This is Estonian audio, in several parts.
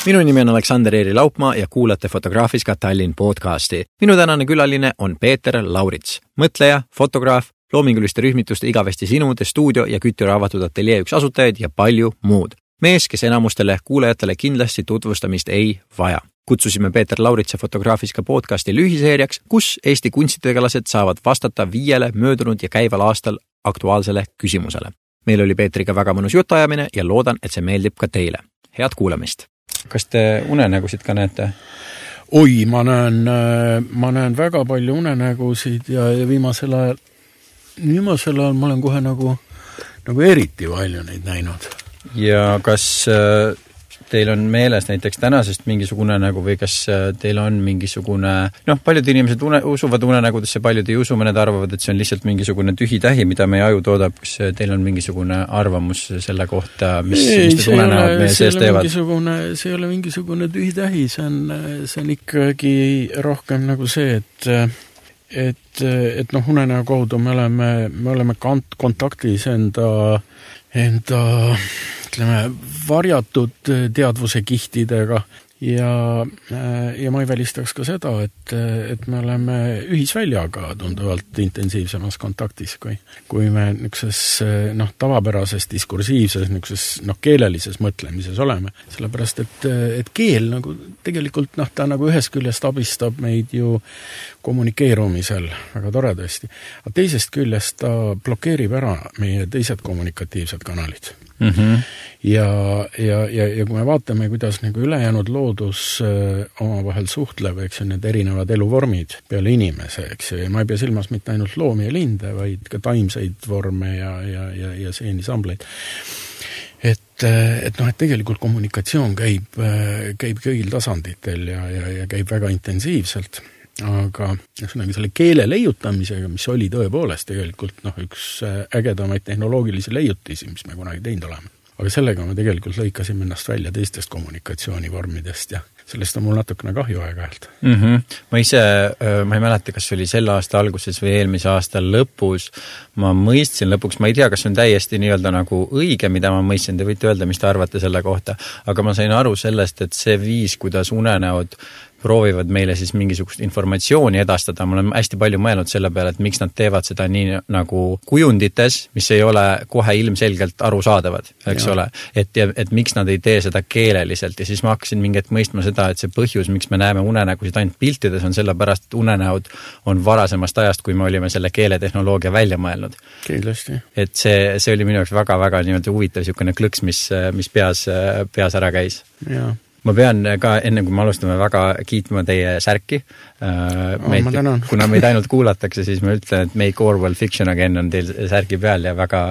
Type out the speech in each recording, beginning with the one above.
Minu nimi on Aleksander Eeri Laupmaa ja kuulate Fotograafiska Tallinn podcasti. Minu tänane külaline on Peeter Laurits, mõtleja, fotograaf, loominguliste rühmituste Igavesti sinu, The Studio ja Kütiraavatud ateljee üks asutajaid ja palju muud. Mees, kes enamustele kuulajatele kindlasti tutvustamist ei vaja. Kutsusime Peeter Lauritse Fotograafiska podcasti lühiseeriaks, kus Eesti kunstitegelased saavad vastata 5 möödunud ja käival aastal aktuaalsele küsimusele. Meil oli Peetriga väga mõnus jutuajamine ja loodan, et see meeldib ka teile. Head kuulamist! Kas te unenägusid ka näete? Oi, ma näen väga palju unenägusid ja viimasel ajal ma olen kohe nagu eriti palju neid näinud. Ja kas teil on meeles näiteks tänasest mingisugune unenägu või kas teil on mingisugune, paljud inimesed usuvad unenägudesse, paljud ei usu, mõned arvavad, et see on lihtsalt mingisugune tühitähi, mida meie aju toodab. Kas teil on mingisugune arvamus selle kohta, mis need unenäod meie sees teevad? See ei ole mingisugune tühitähi, see on ikkagi rohkem nagu see, et unenäo kaudu me oleme kontaktis enda varjatud teadvuse kihtidega ja ma ei välistaks ka seda, et me oleme ühisväljaga tunduvalt intensiivsemas kontaktis, kui me niisuguses tavapärases diskursiivses keelelises mõtlemises oleme. Sellepärast, et keel nagu tegelikult ta nagu ühest küljest abistab meid ju kommunikeerumisel väga toredasti, aga teisest küljest ta blokeerib ära meie teised kommunikatiivsed kanalid. Mm-hmm. Ja kui me vaatame, kuidas nagu ülejäänud loodus omavahel suhtleb, eks ju, need erinevad eluvormid peale inimese, eks ju, ja ma ei pea silmas mitte ainult loomi ja linde, vaid ka taimseid vorme ja seenisambleid. Et tegelikult kommunikatsioon käib kõigil tasanditel ja käib väga intensiivselt. Aga selle keele leiutamisega, mis oli tõepoolest tegelikult üks ägedamaid tehnoloogilisi leiutisi, mis me kunagi teinud oleme. Aga sellega me tegelikult lõikasime ennast välja teistest kommunikatsioonivormidest ja sellest on mul natukene kahju aeg-ajalt. Mm-hmm. Ma ei mäleta, kas oli selle aasta alguses või eelmise aasta lõpus. Ma mõistsin lõpuks, ma ei tea, kas see on täiesti nii-öelda nagu õige, mida ma mõistsin, te võite öelda, mis te arvate selle kohta, aga ma sain aru sellest, et see viis, kuidas unenäod proovivad meile siis mingisugust informatsiooni edastada. Ma olen hästi palju mõelnud selle peale, et miks nad teevad seda nii nagu kujundites, mis ei ole kohe ilmselgelt arusaadavad, eks ole. Et miks nad ei tee seda keeleliselt ja siis ma hakkasin mingit mõistma seda, et see põhjus, miks me näeme unenägusid ainult piltides, on sellepärast, et unenäod on varasemast ajast, kui me olime selle keeletehnoloogia välja mõelnud. Kindlasti. Et see oli minu jaoks väga-väga niimoodi huvitav niisugune klõks, mis peas ära käis. Jaa. Ma pean ka enne, kui me alustame, väga kiitma teie särki. Kuna meid ainult kuulatakse, siis ma ütlen, et Make Orwell Fiction Again on teil särgi peal ja väga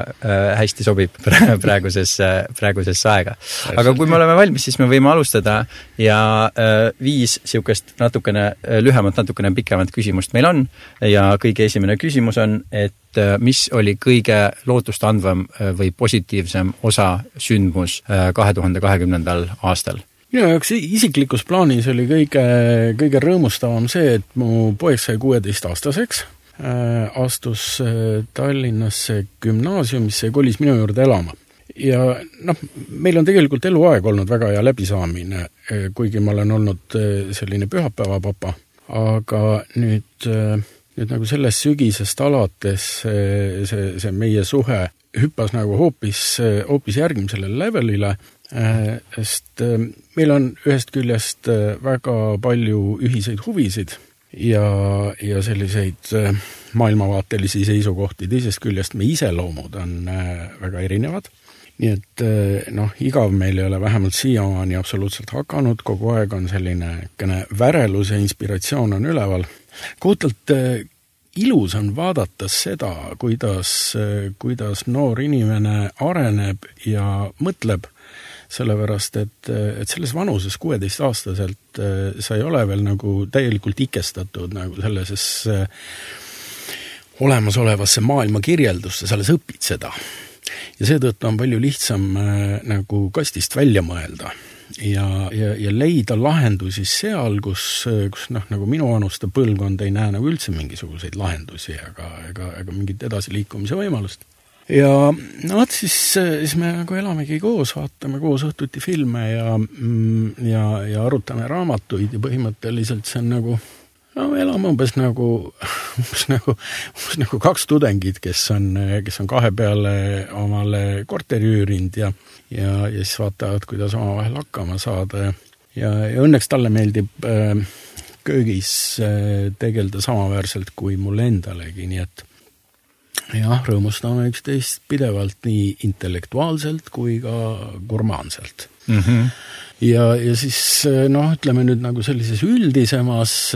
hästi sobib praeguses aega. Aga kui me oleme valmis, siis me võime alustada ja 5 siukest natukene lühemat, natukene pikemat küsimust meil on ja kõige esimene küsimus on, et mis oli kõige lootustandvam või positiivsem osa sündmus 2020. aastal? Minu jaoks isiklikus plaanis oli kõige rõõmustavam see, et mu poeg sai 16-aastaseks, astus Tallinnasse gümnaasiumisse ja kolis minu juurde elama. Ja meil on tegelikult eluaeg olnud väga hea läbisaamine, kuigi ma olen olnud selline pühapäevapapa, aga nüüd nagu sellest sügisest alates see meie suhe hüppas nagu hoopis järgmisele levelile, sest meil on ühest küljest väga palju ühiseid huvisid ja selliseid maailmavaatelisi seisukohti, teisest küljest me iseloomud on väga erinevad. Nii et igav meil ei ole vähemalt siiamaani absoluutselt hakanud, kogu aeg on selline värelus ja inspiratsioon on üleval. Kohutalt ilus on vaadata seda, kuidas noor inimene areneb ja mõtleb, sellepärast, et selles vanuses 16-aastaselt sa ei ole veel nagu täielikult ikestatud nagu selleses olemasolevasse maailma kirjeldusse, sa alles õpid seda. Ja seetõttu on palju lihtsam nagu kastist välja mõelda ja leida lahendusi seal, kus nagu minu vanuste põlvkond ei näe nagu üldse mingisuguseid lahendusi ega mingit edasiliikumise võimalust. ja no siis me nagu elamegi koos, vaatame koos õhtuti filme ja arutame raamatuid ja põhimõtteliselt see on nagu no me elame umbes nagu kaks tudengit, kes on kahe peale omale korteri üürinud ja siis vaatavad, kuidas omavahel hakkama saada ja õnneks talle meeldib köögis tegelda samaväärselt kui mulle endalegi, nii et jah, rõõmustame üksteist pidevalt nii intellektuaalselt kui ka gurmaanselt. Mm-hmm. Ja siis ütleme nüüd nagu sellises üldisemas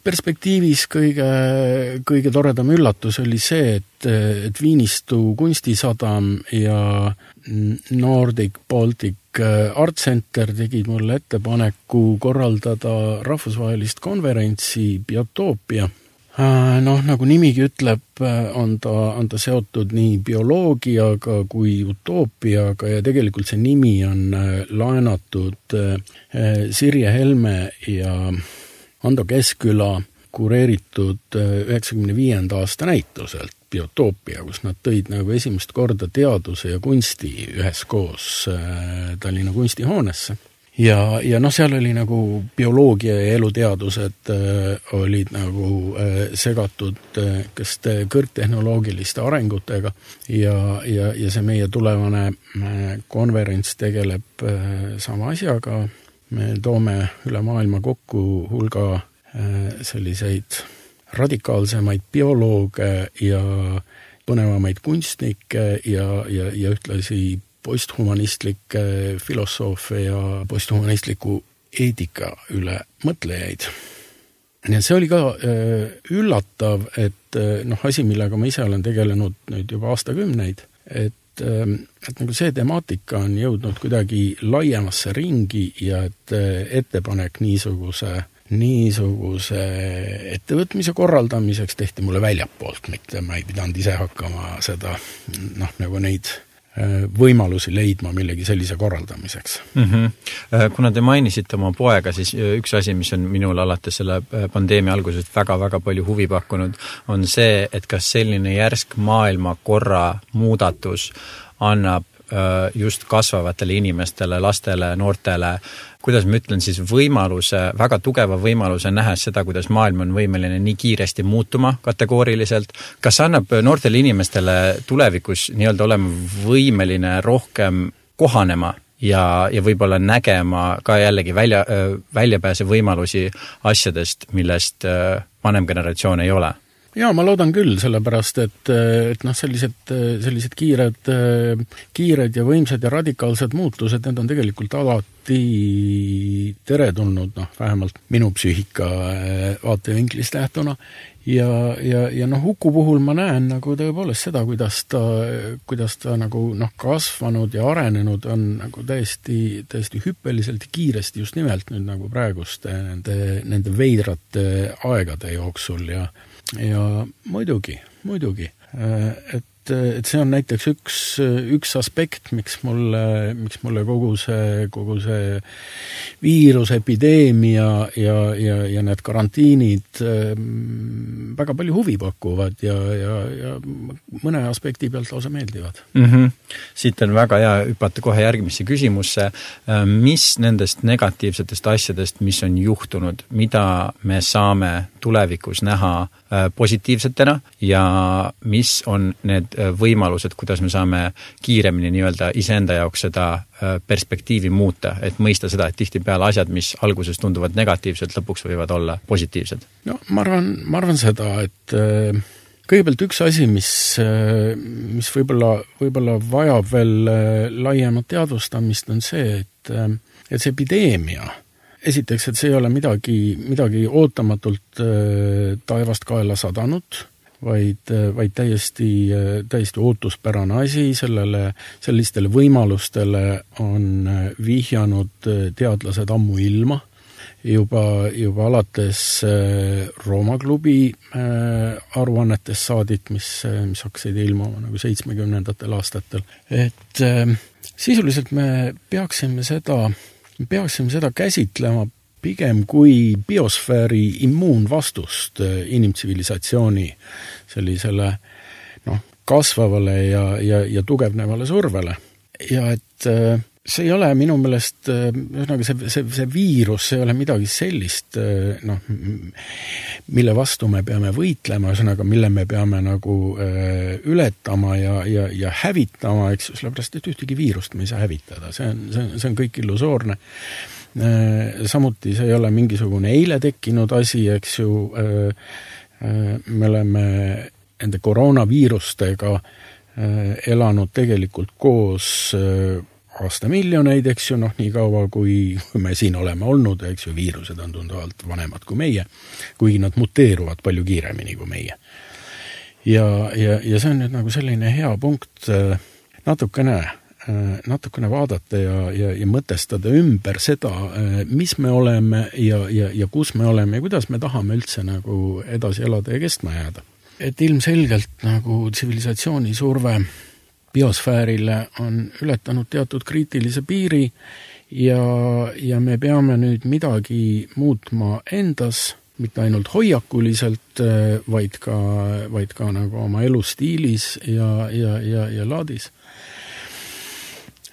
perspektiivis kõige toredam üllatus oli see, et Viinistu kunstisadam ja Nordic Baltic Art Center tegid mulle ettepaneku korraldada rahvusvahelist konverentsi Biotoopia. Nagu nimigi ütleb, on ta seotud nii bioloogiaga kui utoopiaga ja tegelikult see nimi on laenatud Sirje Helme ja Ando Keskküla kureeritud 95. aasta näituselt Biotoopia, kus nad tõid nagu esimest korda teaduse ja kunsti üheskoos Tallinna kunstihoonesse. Ja seal oli nagu bioloogia ja eluteadused olid nagu segatud kõrgtehnoloogiliste arengutega ja see meie tulevane konverents tegeleb sama asjaga. Me toome üle maailma kokku hulga selliseid radikaalsemaid biolooge ja põnevamaid kunstnikke ja ühtlasi posthumanistlikke filosoofe ja posthumanistliku eetika üle mõtlejaid. Ja see oli ka üllatav, et asi, millega ma ise olen tegelenud nüüd juba aastakümneid, et nagu see temaatika on jõudnud kuidagi laiemasse ringi ja et ettepanek niisuguse ettevõtmise korraldamiseks tehti mulle väljapoolt, mitte ma ei pidanud ise hakkama seda nagu neid võimalusi leidma millegi sellise korraldamiseks. Mm-hmm. Kuna te mainisite oma poega, siis üks asi, mis on minul alates selle pandeemia algusest väga-väga palju huvi pakkunud, on see, et kas selline järsk maailmakorra muudatus annab just kasvavatele inimestele, lastele, noortele, kuidas ma ütlen siis väga tugeva võimaluse nähes seda, kuidas maailm on võimeline nii kiiresti muutuma kategooriliselt. Kas annab noortele inimestele tulevikus nii-öelda olema võimeline rohkem kohanema ja võib-olla nägema ka jällegi väljapääse võimalusi asjadest, millest vanem generatsioon ei ole? Jaa, ma loodan küll, sellepärast, et sellised kiired ja võimsad ja radikaalsed muutused, need on tegelikult alati teretulnud, vähemalt minu psüühika vaatevinklist lähtuna. Ja Huku puhul ma näen nagu tõepoolest seda, kuidas ta nagu kasvanud ja arenenud on nagu täiesti hüppeliselt ja kiiresti just nimelt nüüd nagu praeguste nende veidrate aegade jooksul ja muidugi, et see on näiteks üks aspekt, miks mulle kogu see viirusepideemia ja need karantiinid väga palju huvi pakuvad ja mõne aspekti pealt lausa meeldivad. Mm-hmm. Siit on väga hea hüpata kohe järgmisse küsimusse. Mis nendest negatiivsetest asjadest, mis on juhtunud, mida me saame tulevikus näha positiivsetena ja mis on need võimalused, kuidas me saame kiiremini nii-öelda iseenda jaoks seda perspektiivi muuta, et mõista seda, et tihtipeale asjad, mis alguses tunduvad negatiivselt, lõpuks võivad olla positiivsed? No, ma arvan seda, et kõigepealt üks asi, mis võib-olla vajab veel laiemat teadvustamist, on see, et see epideemia, esiteks, et see ei ole midagi ootamatult taevast kaela sadanud, vaid täiesti ootuspärane asi, sellistele võimalustele on vihjanud teadlased ammu ilma, juba alates Rooma klubi aruannetest saadik, mis hakkasid ilmuma nagu 70. aastatel. Et sisuliselt me peaksime seda käsitlema pigem kui biosfääri immuunvastust inimtsivilisatsiooni sellisele kasvavale ja tugevnevale survele. Ja et see ei ole minu meelest, see viirus, see ei ole midagi sellist, mille vastu me peame võitlema, mille me peame nagu ületama ja hävitama, eks, sellepärast, et ühtegi viirust me ei saa hävitada. See on kõik illusoorne. Samuti see ei ole mingisugune eile tekkinud asi, eks ju, me oleme nende koroonaviirustega elanud tegelikult koos aastamiljoneid, eks ju, nii kaua, kui me siin oleme olnud, eks ju, viirused on tunduvalt vanemad kui meie, kuigi nad muteeruvad palju kiiremini kui meie. Ja see on nüüd nagu selline hea punkt natukene vaadata ja mõtestada ümber seda, mis me oleme ja kus me oleme ja kuidas me tahame üldse nagu edasi elada ja kestma jääda. Et ilmselgelt nagu tsivilisatsiooni surve biosfäärile on ületanud teatud kriitilise piiri ja me peame nüüd midagi muutma endas, mitte ainult hoiakuliselt, vaid ka nagu oma elustiilis ja laadis.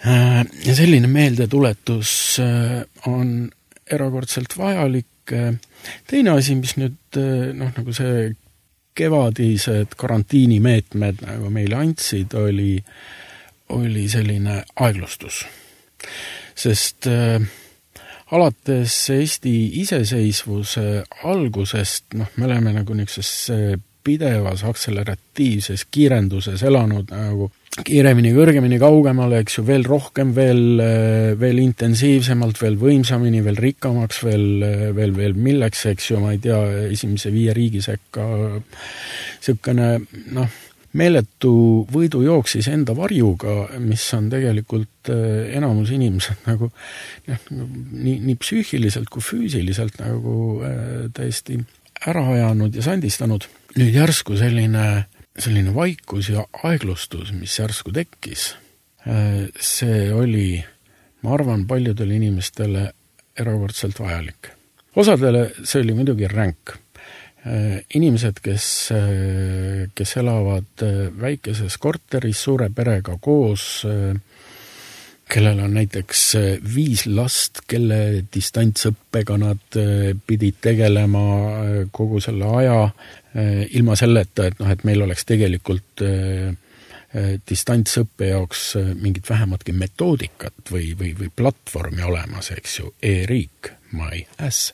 Ja selline meeldetuletus on erakordselt vajalik. Teine asi, mis nüüd nagu see kevadised karantiinimeetmed nagu meile andsid, oli selline aeglustus. Sest alates Eesti iseseisvuse algusest me oleme nagu niisuguses pidevas akseleratiivses kiirenduses elanud nagu kiiremini, kõrgemini, kaugemale, eks ju, veel rohkem, veel intensiivsemalt, veel võimsamini, veel rikkamaks, veel milleks, eks ju, ma ei tea, esimese 5 riigi sekka selline, meeletu võidu jooksis enda varjuga, mis on tegelikult enamus inimesed nagu nii psüühiliselt kui füüsiliselt nagu täiesti ära ajanud ja sandistanud. Nüüd järsku selline vaikus ja aeglustus, mis järsku tekkis, see oli, ma arvan, paljudele inimestele erakordselt vajalik. Osadele see oli muidugi ränk. Inimesed, kes elavad väikeses korteris suure perega koos, kellel on näiteks 5 last, kelle distantsõppega nad pidid tegelema kogu selle aja, ilma selleta, et meil oleks tegelikult distantsõppe jaoks mingit vähematki metoodikat või platvormi olemas, eks ju, e-riik, my ass.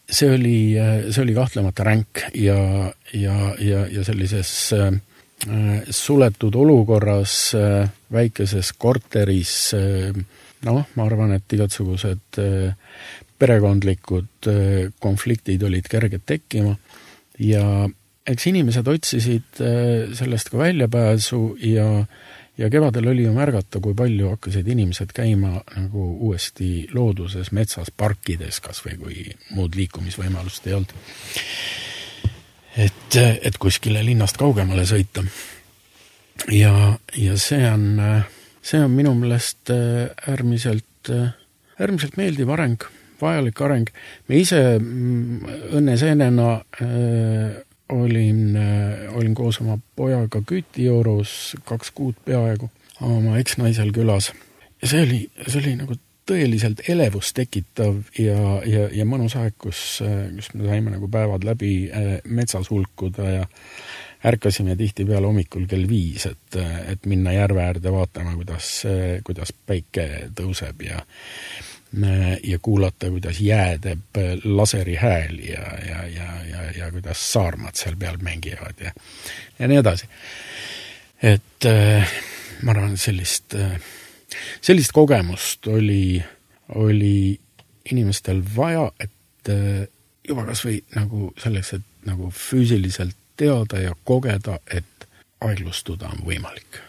See oli kahtlemata ränk ja sellises suletud olukorras väikeses korteris, ma arvan, et igasugused perekondlikud konfliktid olid kerged tekkima ja eks inimesed otsisid sellest ka väljapääsu ja kevadel oli ju märgata, kui palju hakkasid inimesed käima nagu uuesti looduses, metsas, parkides, kas või kui muud liikumisvõimalust ei olnud. Et kuskile linnast kaugemale sõita. Ja see on minu meelest äärmiselt meeldiv areng, vajalik areng. Me ise õnneseenena olin koos oma pojaga Kütijoorus 2 kuud peaaegu oma eksnaisel külas. Ja see oli nagu tõeliselt elevust tekitav ja mõnus aeg, kus me saime nagu päevad läbi metsas hulkuda ja ärkasime tihtipeale hommikul kell 5, et minna järve äärde vaatama, kuidas päike tõuseb ja kuulata, kuidas jää teeb laseri hääl ja kuidas saarmad seal peal mängivad ja nii edasi. Et ma arvan, sellist kogemust oli inimestel vaja, et juba kas või nagu selleks, et nagu füüsiliselt teada ja kogeda, et aeglustuda on võimalik.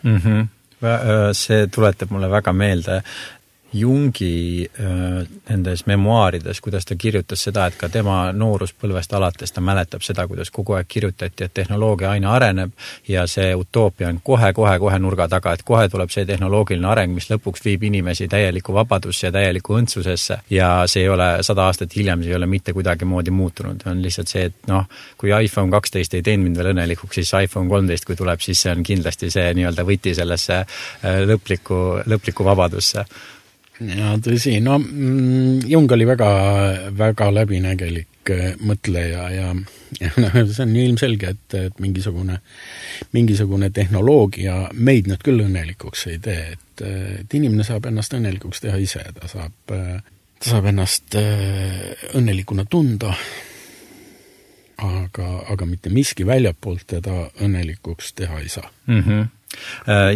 See tuletab mulle väga meelde Jungi nendes memuaarides, kuidas ta kirjutas seda, et ka tema nooruspõlvest alates ta mäletab seda, kuidas kogu aeg kirjutati, et tehnoloogia aina areneb ja see utoopia on kohe nurga taga, et kohe tuleb see tehnoloogiline areng, mis lõpuks viib inimesi täieliku vabadusse ja täieliku õndsusesse ja see ei ole 100 aastat hiljem, see ei ole mitte kuidagi moodi muutunud. On lihtsalt see, et kui iPhone 12 ei teinud mind veel õnnelikuks, siis iPhone 13, kui tuleb, siis see on kindlasti see nii-öelda võti sellesse lõpliku vabadusse. Ja tõsi, Jung oli väga läbinägelik mõtleja ja see on ilmselge, et mingisugune tehnoloogia meid nüüd küll õnnelikuks ei tee, et inimene saab ennast õnnelikuks teha ise, ta saab ennast õnnelikuna tunda, aga mitte miski väljapoolt teda õnnelikuks teha ei saa.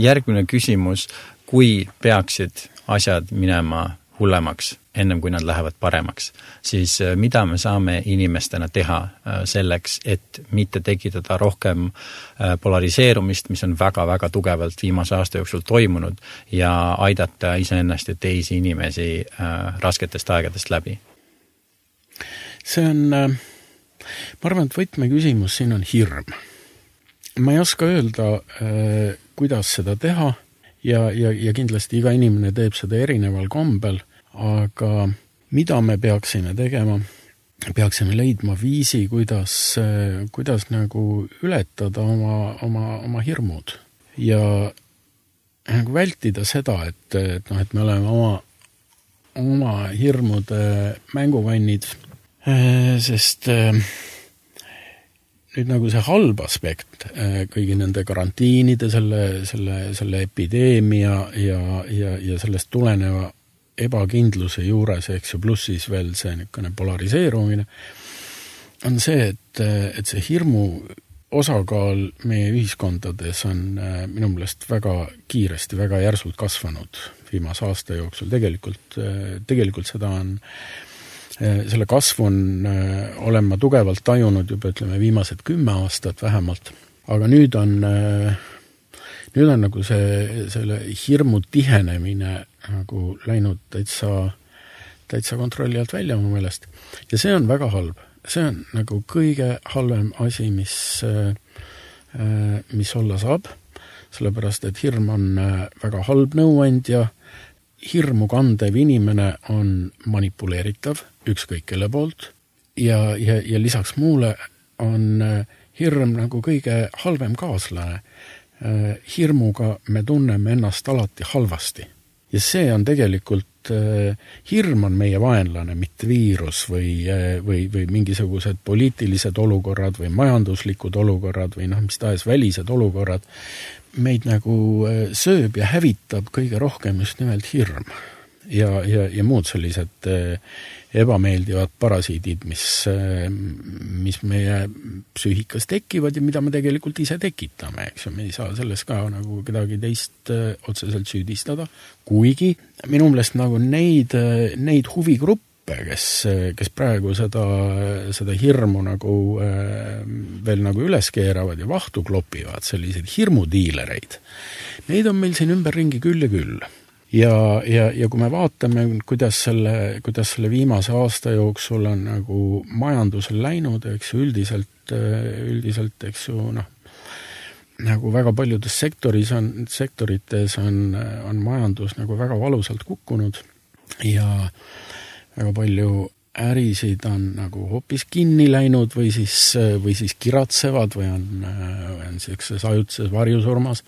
Järgmine küsimus, kui peaksid asjad minema hullemaks, ennem kui nad lähevad paremaks, siis mida me saame inimestena teha selleks, et mitte tekitada rohkem polariseerumist, mis on väga tugevalt viimase aasta jooksul toimunud ja aidata iseennast ja teisi inimesi rasketest aegadest läbi? See on, ma arvan, et võtmeküsimus siin on hirm. Ma ei oska öelda, kuidas seda teha, ja kindlasti iga inimene teeb seda erineval kombel, aga mida me peaksime tegema? Peaksime leidma viisi, kuidas nagu ületada oma hirmud ja nagu vältida seda, et me oleme oma hirmude mänguvannid, sest nüüd nagu see halb aspekt kõigi nende karantiinide, selle epideemia ja sellest tuleneva ebakindluse juures, eks ju, pluss siis veel see niisugune polariseerumine, on see, et see hirmu osakaal meie ühiskondades on minu meelest väga kiiresti, väga järsult kasvanud viimase aasta jooksul. Tegelikult seda on selle kasvu olen ma tugevalt tajunud juba, ütleme, viimased 10 aastat vähemalt, aga nüüd on nagu selle hirmu tihenemine nagu läinud täitsa kontrolli alt välja oma meelest. Ja see on väga halb. See on nagu kõige halvem asi, mis olla saab, sellepärast, et hirm on väga halb nõuandja. Hirmu kandev inimene on manipuleeritav ükskõik kelle poolt ja lisaks muule on hirm nagu kõige halvem kaaslane. Hirmuga me tunneme ennast alati halvasti ja see on tegelikult, hirm on meie vaenlane, mitte viirus või mingisugused poliitilised olukorrad või majanduslikud olukorrad või mis tahes välised olukorrad. Meid nagu sööb ja hävitab kõige rohkem just nimelt hirm ja muud sellised ebameeldivad parasiidid, mis meie psüühikas tekivad ja mida me tegelikult ise tekitame, eks ju, me ei saa selles ka nagu kedagi teist otseselt süüdistada, kuigi minu meelest nagu neid huvigruppe, kes praegu seda hirmu nagu veel nagu üles keeravad ja vahtu klopivad, selliseid hirmudiilereid. Neid on meil siin ümberringi küll ja küll. Ja kui me vaatame, kuidas selle viimase aasta jooksul on nagu majandusel läinud, eks ju, üldiselt, eks ju, nagu väga paljudes sektorites on majandus nagu väga valusalt kukkunud ja väga palju ärisid on nagu hoopis kinni läinud või siis kiratsevad või on sellises ajutises varjusurmas.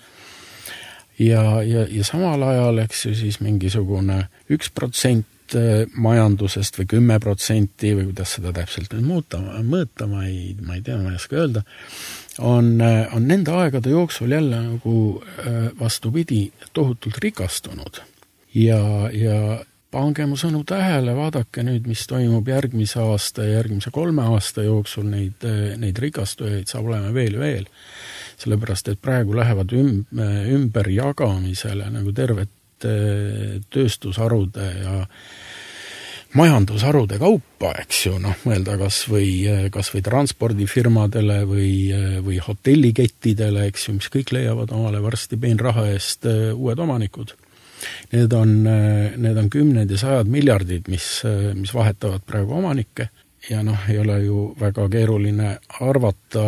Ja samal ajal, eks ju, siis mingisugune 1% majandusest või 10% või kuidas seda täpselt mõõta, ma ei tea, ma ei oska öelda, on nende aegade jooksul jälle nagu vastupidi tohutult rikastunud. Ja pange mu sõnu tähele, vaadake nüüd, mis toimub järgmise aasta ja järgmise 3 aasta jooksul, neid rikastujaid saab olema veel ja veel. Sellepärast, et praegu lähevad ümber jagamisele nagu tervet tööstusharude ja majandusharude kaupa, eks ju, mõelda kas või transpordifirmadele või hotellikettidele, eks ju, mis kõik leiavad omale varsti peenraha eest uued omanikud. Need on kümned ja sajad miljardid, mis vahetavad praegu omanikke ja ei ole ju väga keeruline arvata,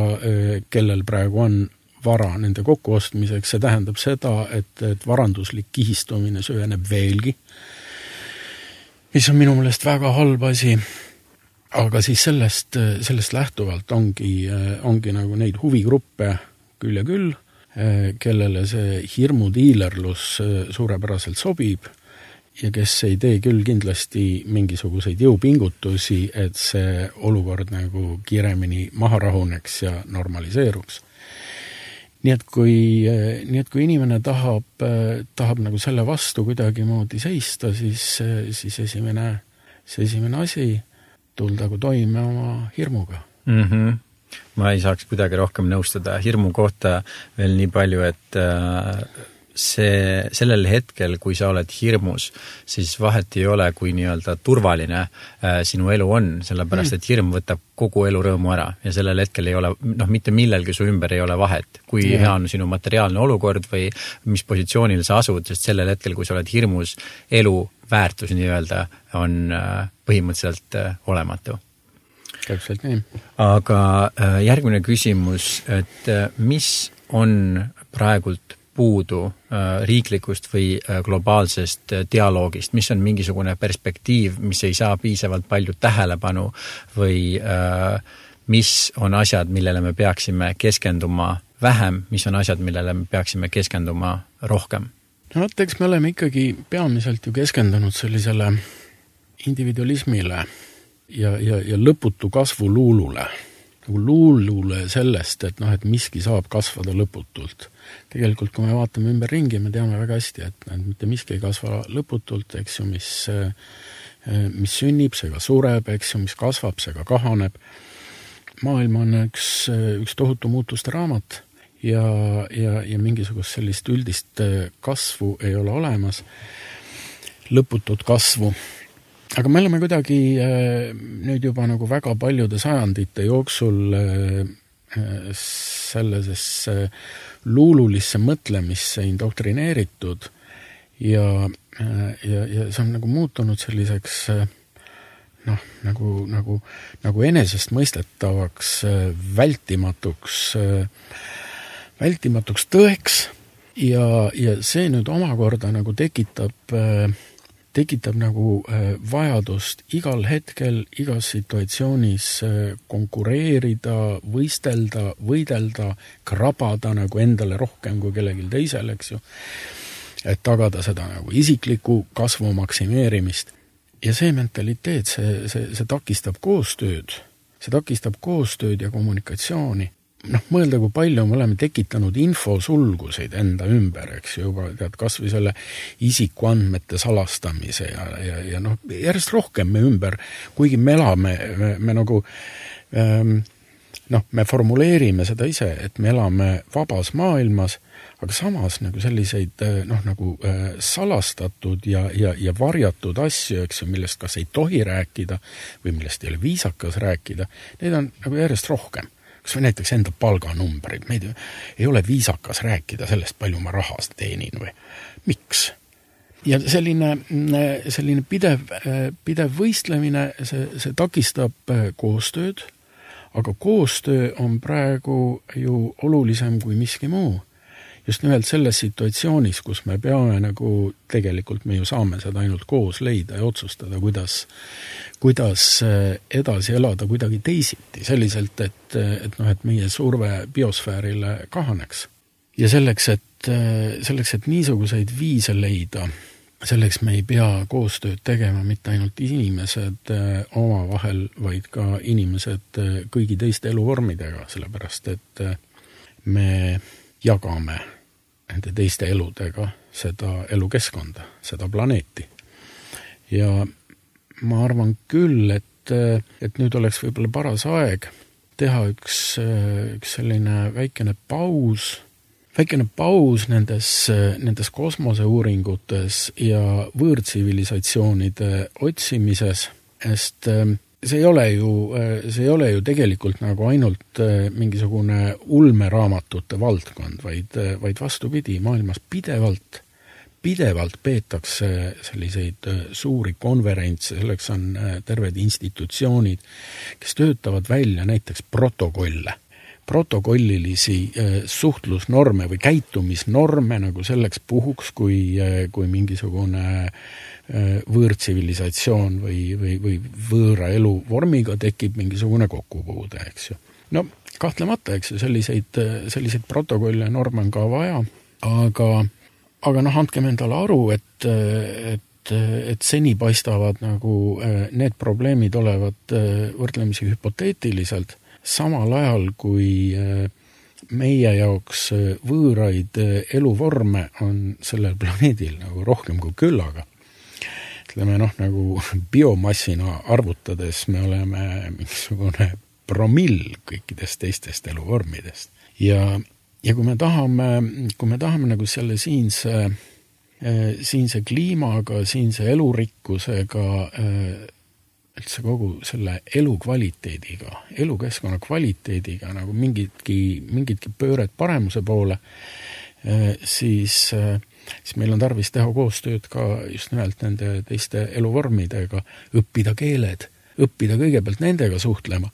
kellel praegu on vara nende kokkuostmiseks. See tähendab seda, et varanduslik kihistumine süveneb veelgi, mis on minu meelest väga halb asi, aga siis sellest lähtuvalt ongi nagu neid huvigruppe küll ja küll, kellele see hirmudiilerlus suurepäraselt sobib ja kes ei tee küll kindlasti mingisuguseid jõupingutusi, et see olukord nagu kiiremini maha rahuneks ja normaliseeruks. Nii et kui inimene tahab nagu selle vastu kuidagi moodi seista, siis esimene asi tuldagu toime oma hirmuga. Mm-hmm. Ma ei saaks kuidagi rohkem nõustada hirmu kohta veel nii palju, et sellel hetkel, kui sa oled hirmus, siis vahet ei ole, kui nii-öelda turvaline sinu elu on, sellepärast, et hirm võtab kogu elu rõõmu ära ja sellel hetkel ei ole, mitte millelgi su ümber ei ole vahet, kui hea on sinu materiaalne olukord või mis positsioonil sa asud, sest sellel hetkel, kui sa oled hirmus, elu väärtus nii-öelda on põhimõtteliselt olematu. Täpselt nii. Aga järgmine küsimus, et mis on praegult puudu riiklikust või globaalsest dialoogist, mis on mingisugune perspektiiv, mis ei saa piisavalt palju tähelepanu või mis on asjad, millele me peaksime keskenduma vähem, mis on asjad, millele me peaksime keskenduma rohkem? Eks me oleme ikkagi peamiselt ju keskendunud sellisele individualismile ja lõputu kasvu luulule. Nagu luulule sellest, et miski saab kasvada lõputult. Tegelikult, kui me vaatame ümber ringi, me teame väga hästi, et mitte miski ei kasva lõputult, eks ju, mis sünnib, see ka sureb, eks ju, mis kasvab, see ka kahaneb. Maailm on üks tohutu muutuste raamat ja mingisugust sellist üldist kasvu ei ole olemas, lõputut kasvu. Aga me oleme kuidagi nüüd juba nagu väga paljude sajandite jooksul sellisesse luululisse mõtlemisse indoktrineeritud ja see on nagu muutunud selliseks nagu enesest mõistetavaks vältimatuks tõeks ja see nüüd omakorda nagu tekitab nagu vajadust igal hetkel, igas situatsioonis konkureerida, võidelda, krabada nagu endale rohkem kui kellelgi teisel, eks ju, et tagada seda nagu isikliku kasvu maksimeerimist. Ja see mentaliteet, see takistab koostööd ja kommunikatsiooni. Mõelda, kui palju me oleme tekitanud infosulguseid enda ümber, eks juba, kas või selle isikuandmete salastamise ja järjest rohkem me ümber, kuigi me elame, me formuleerime seda ise, et me elame vabas maailmas, aga samas nagu selliseid salastatud ja varjatud asju, eks ju, millest kas ei tohi rääkida või millest ei ole viisakas rääkida, neid on nagu järjest rohkem. Kas või näiteks enda palganumbrid, meid ei ole viisakas rääkida sellest, palju ma rahast teenin või miks. Ja selline pidev võistlemine, see takistab koostööd, aga koostöö on praegu ju olulisem kui miski muu. Just nimelt selles situatsioonis, kus me peame nagu, tegelikult me ju saame seda ainult koos leida ja otsustada, kuidas edasi elada kuidagi teisiti, selliselt, et meie surve biosfäärile kahaneks. Ja selleks, et niisuguseid viise leida, selleks me ei pea koostööd tegema mitte ainult inimesed omavahel, vaid ka inimesed kõigi teiste eluvormidega, sellepärast, et me jagame nende teiste eludega seda elukeskkonda, seda planeeti. Ja ma arvan küll, et nüüd oleks võib-olla paras aeg teha üks selline väikene paus nendes kosmoseuuringutes ja võõrtsivilisatsioonide otsimises, sest see ei ole ju tegelikult nagu ainult mingisugune ulmeraamatute valdkond, vaid vastupidi, maailmas pidevalt peetakse selliseid suuri konverentse, selleks on terved institutsioonid, kes töötavad välja näiteks protokollilisi suhtlusnorme või käitumisnorme nagu selleks puhuks, kui mingisugune võõrtsivilisatsioon või võõra eluvormiga tekib mingisugune kokkupuude, eks ju. No kahtlemata, eks ju, selliseid protokolle norme on ka vaja, aga andkem endale aru, et seni paistavad nagu need probleemid olevat võrdlemisi hüpoteetiliselt, samal ajal kui meie jaoks võõraid eluvorme on sellel planeedil nagu rohkem kui küllaga. Ütleme nagu biomassina arvutades me oleme mingisugune promill kõikidest teistest eluvormidest. Ja kui me tahame nagu selle siinse kliimaga, siinse elurikkusega, üldse kogu selle elukvaliteediga, elukeskkonna kvaliteediga nagu mingitki pööret paremuse poole, siis meil on tarvis teha koostööd ka just nimelt nende teiste eluvormidega, õppida keeled, õppida kõigepealt nendega suhtlema.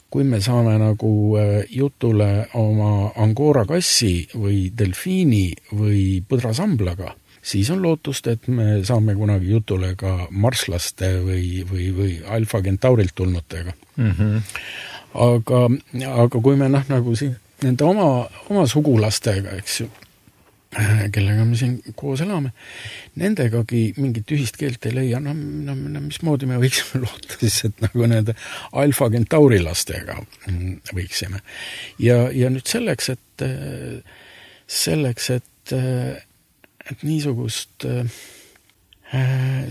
Kui me saame nagu jutule oma angora kassi või delfiini või põdrasamblaga, siis on lootust, et me saame kunagi jutule ka marslaste või Alfa Centaurilt tulnutega. Aga kui me nagu siin nende oma sugulastega, eks ju, kellega me siin koos elame, nendegagi mingit ühist keelt ei leia, mismoodi me võiksime loota siis, et nagu nende Alfa Centauri lastega võiksime. Ja nüüd selleks, et niisugust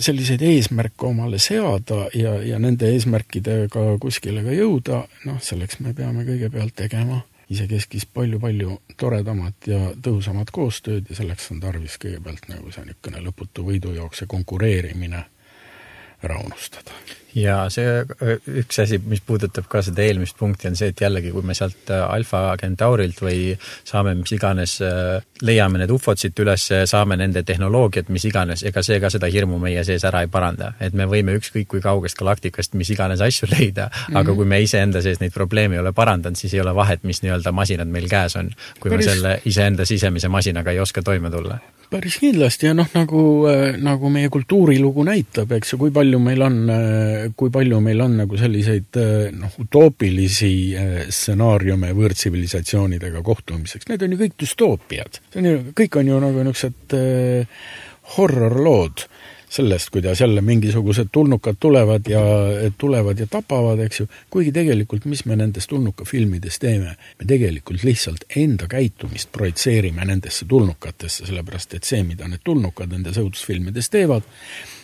selliseid eesmärke omale seada ja nende eesmärkidega kuskile ka jõuda, selleks me peame kõigepealt tegema isekeskis palju toredamat ja tõhusamat koostööd ja selleks on tarvis kõigepealt nagu see niisugune lõputu võidujookse konkureerimine ära unustada. Ja see üks asi, mis puudutab ka seda eelmist punkti, on see, et jällegi, kui me sealt Alfa Centaurilt või saame mis iganes, leiame need ufod siit üles, saame nende tehnoloogiat, mis iganes, ega see ka seda hirmu meie sees ära ei paranda. Et me võime ükskõik kui kaugest galaktikast mis iganes asju leida, aga kui me iseenda sees neid probleeme ei ole parandanud, siis ei ole vahet, mis nii-öelda masinad meil käes on, kui me selle iseenda sisemise masinaga ei oska toime tulla. Päris kindlasti ja nagu meie kultuurilugu näitab, eks ju, kui palju meil on nagu selliseid utoopilisi stsenaariume võõrtsivilisatsioonidega kohtumiseks. Need on ju kõik dystoopiad. Kõik on ju nagu niisugused horrorlood sellest, kuidas jälle mingisugused tulnukad tulevad ja tapavad, eks ju. Kuigi tegelikult, mis me nendest tulnukafilmides teeme? Me tegelikult lihtsalt enda käitumist projitseerime nendesse tulnukatesse, sellepärast et see, mida need tulnukad nendes õudusfilmides teevad,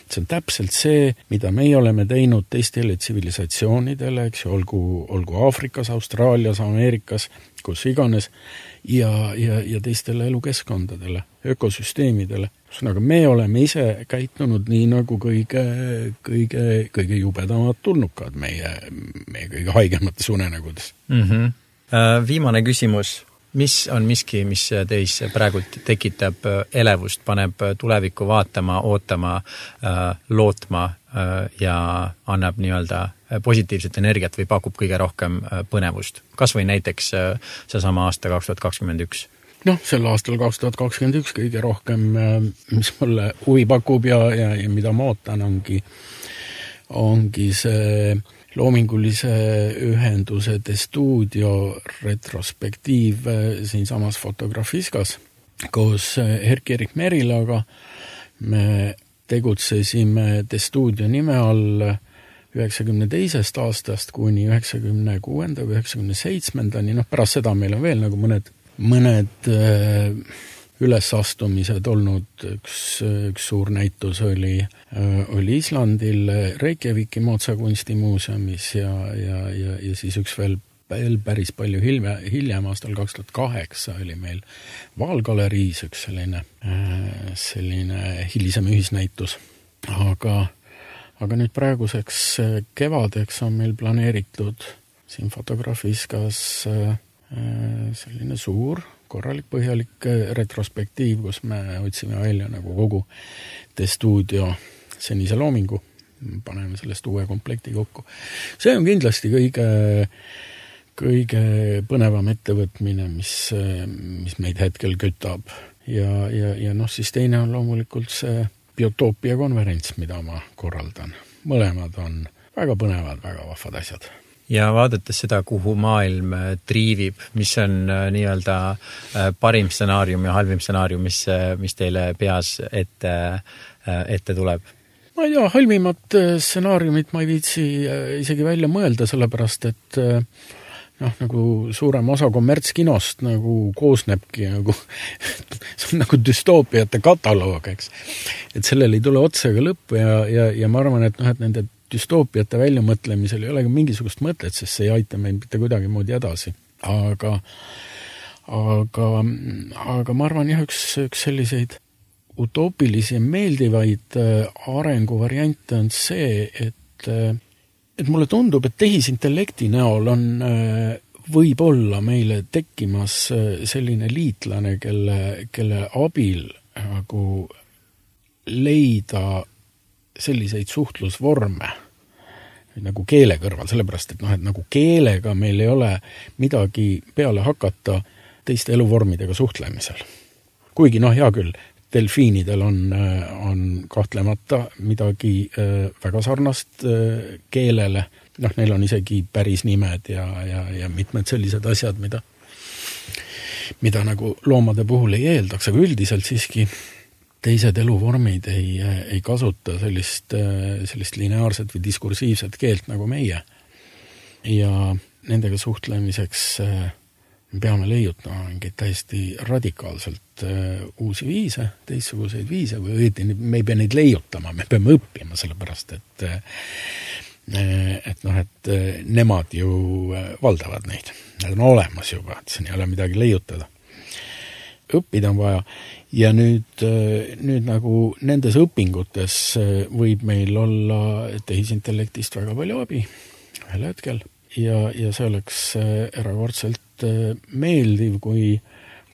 see on täpselt see, mida meie oleme teinud teistele tsivilisatsioonidele, eks ju, olgu Aafrikas, Austraalias, Ameerikas, kus iganes, ja teistele elukeskkondadele, ökosüsteemidele. Aga me oleme ise käitunud nii nagu kõige jubedamad tulnukad meie kõige haigemates unenägudes. Viimane küsimus. Mis on miski, mis teis praegult tekitab elevust, paneb tulevikku vaatama, ootama, lootma ja annab nii-öelda positiivset energiat või pakub kõige rohkem põnevust? Kas või näiteks seesama aasta 2021? Sel aastal 2021 kõige rohkem, mis mulle huvi pakub ja mida ma ootan, ongi see loomingulise ühenduse De Studio retrospektiiv siinsamas Fotografiskas. Koos Erk-Erik Merilaga me tegutsesime De Studio nime all 92. aastast kuni 96. või 97. Pärast seda meil on veel nagu mõned ülesastumised olnud. Üks suur näitus oli Islandil Reykjaviki Mootsa kunstimuuseumis ja siis üks veel päris palju hiljem aastal 2008 oli meil Vaalgaleriis üks selline hilisem ühisnäitus. Aga nüüd praeguseks kevadeks on meil planeeritud siin Fotografiskas selline suur korralik põhjalik retrospektiiv, kus me otsime välja nagu kogu The Studio senise loomingu, paneme sellest uue komplekti kokku. See on kindlasti kõige põnevam ettevõtmine, mis meid hetkel kütab. Ja siis teine on loomulikult see Biotoopia konverents, mida ma korraldan. Mõlemad on väga põnevad, väga vahvad asjad. Ja vaadates seda, kuhu maailm triivib, mis on nii-öelda parim stsenaarium ja halvim stsenaarium, mis teile peas ette tuleb? Ma ei tea, halvimat stsenaariumit ma ei viitsi isegi välja mõelda, sellepärast, et nagu suurem osa kommertskinost nagu koosnebki nagu, see on nagu düstoopiate kataloog, eks. Et sellel ei tule otsaga lõppu ja ma arvan, et nende düstoopiate väljamõtlemisel ei ole mingisugust mõtet, sest see ei aita meid mitte kuidagi moodi edasi. Aga ma arvan jah, üks selliseid utoopilisi ja meeldivaid arenguvariante on see, et mulle tundub, et tehisintellekti näol on võib-olla meile tekkimas selline liitlane, kelle abil nagu leida selliseid suhtlusvorme nagu keele kõrval, sellepärast, et nagu keelega meil ei ole midagi peale hakata teiste eluvormidega suhtlemisel. Kuigi hea küll, delfiinidel on kahtlemata midagi väga sarnast keelele. Neil on isegi päris nimed ja mitmed sellised asjad, mida nagu loomade puhul ei eeldaks, aga üldiselt siiski teised eluvormid ei kasuta sellist lineaarset või diskursiivset keelt nagu meie. Ja nendega suhtlemiseks me peame leiutama mingeid täiesti radikaalselt uusi viise, teistsuguseid viise, või õieti me ei pea neid leiutama, me peame õppima, sellepärast, et nemad ju valdavad neid. Need on olemas juba, et siin ei ole midagi leiutada. Õppida on vaja ja nüüd nagu nendes õpingutes võib meil olla tehisintellektist väga palju abi ühel hetkel ja see oleks erakordselt meeldiv, kui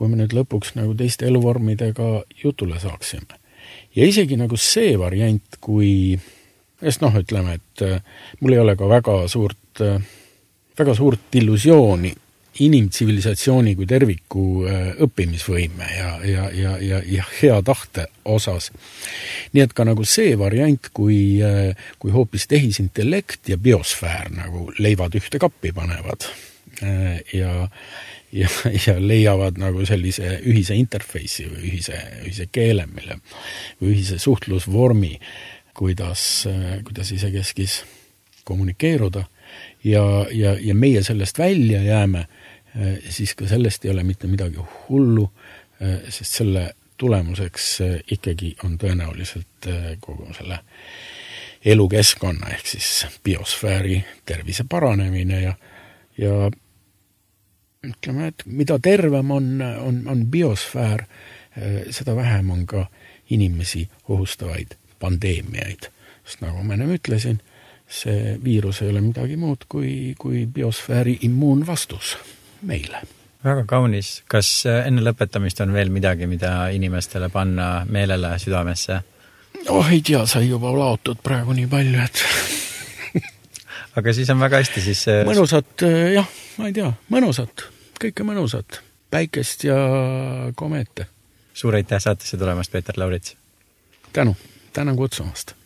me nüüd lõpuks nagu teiste eluvormidega jutule saaksime. Ja isegi nagu see variant, kui ütleme, et mul ei ole ka väga suurt illusiooni inimtsivilisatsiooni kui terviku õppimisvõime ja hea tahte osas. Nii et ka nagu see variant, kui hoopis tehisintellekt ja biosfäär nagu leivad ühte kappi panevad ja leiavad nagu sellise ühise interface'i või ühise keele, või ühise suhtlusvormi, kuidas isekeskis kommunikeeruda ja meie sellest välja jääme, siis ka sellest ei ole mitte midagi hullu, sest selle tulemuseks ikkagi on tõenäoliselt kogu selle elukeskkonna ehk siis biosfääri tervise paranemine ja ütleme, et mida tervem on biosfäär, seda vähem on ka inimesi ohustavaid pandeemiaid. Sest nagu ma ennem ütlesin, see viirus ei ole midagi muud kui biosfääri immuunvastus meile. Väga kaunis. Kas enne lõpetamist on veel midagi, mida inimestele panna meelele südamesse? Ei tea, sai juba laotud praegu nii palju, et aga siis on väga hästi siis mõnusat, jah, ma ei tea, mõnusat, kõike mõnusat, päikest ja komeete. Suur aitäh saatesse tulemast, Peeter Laurits. Tänan kutsumast.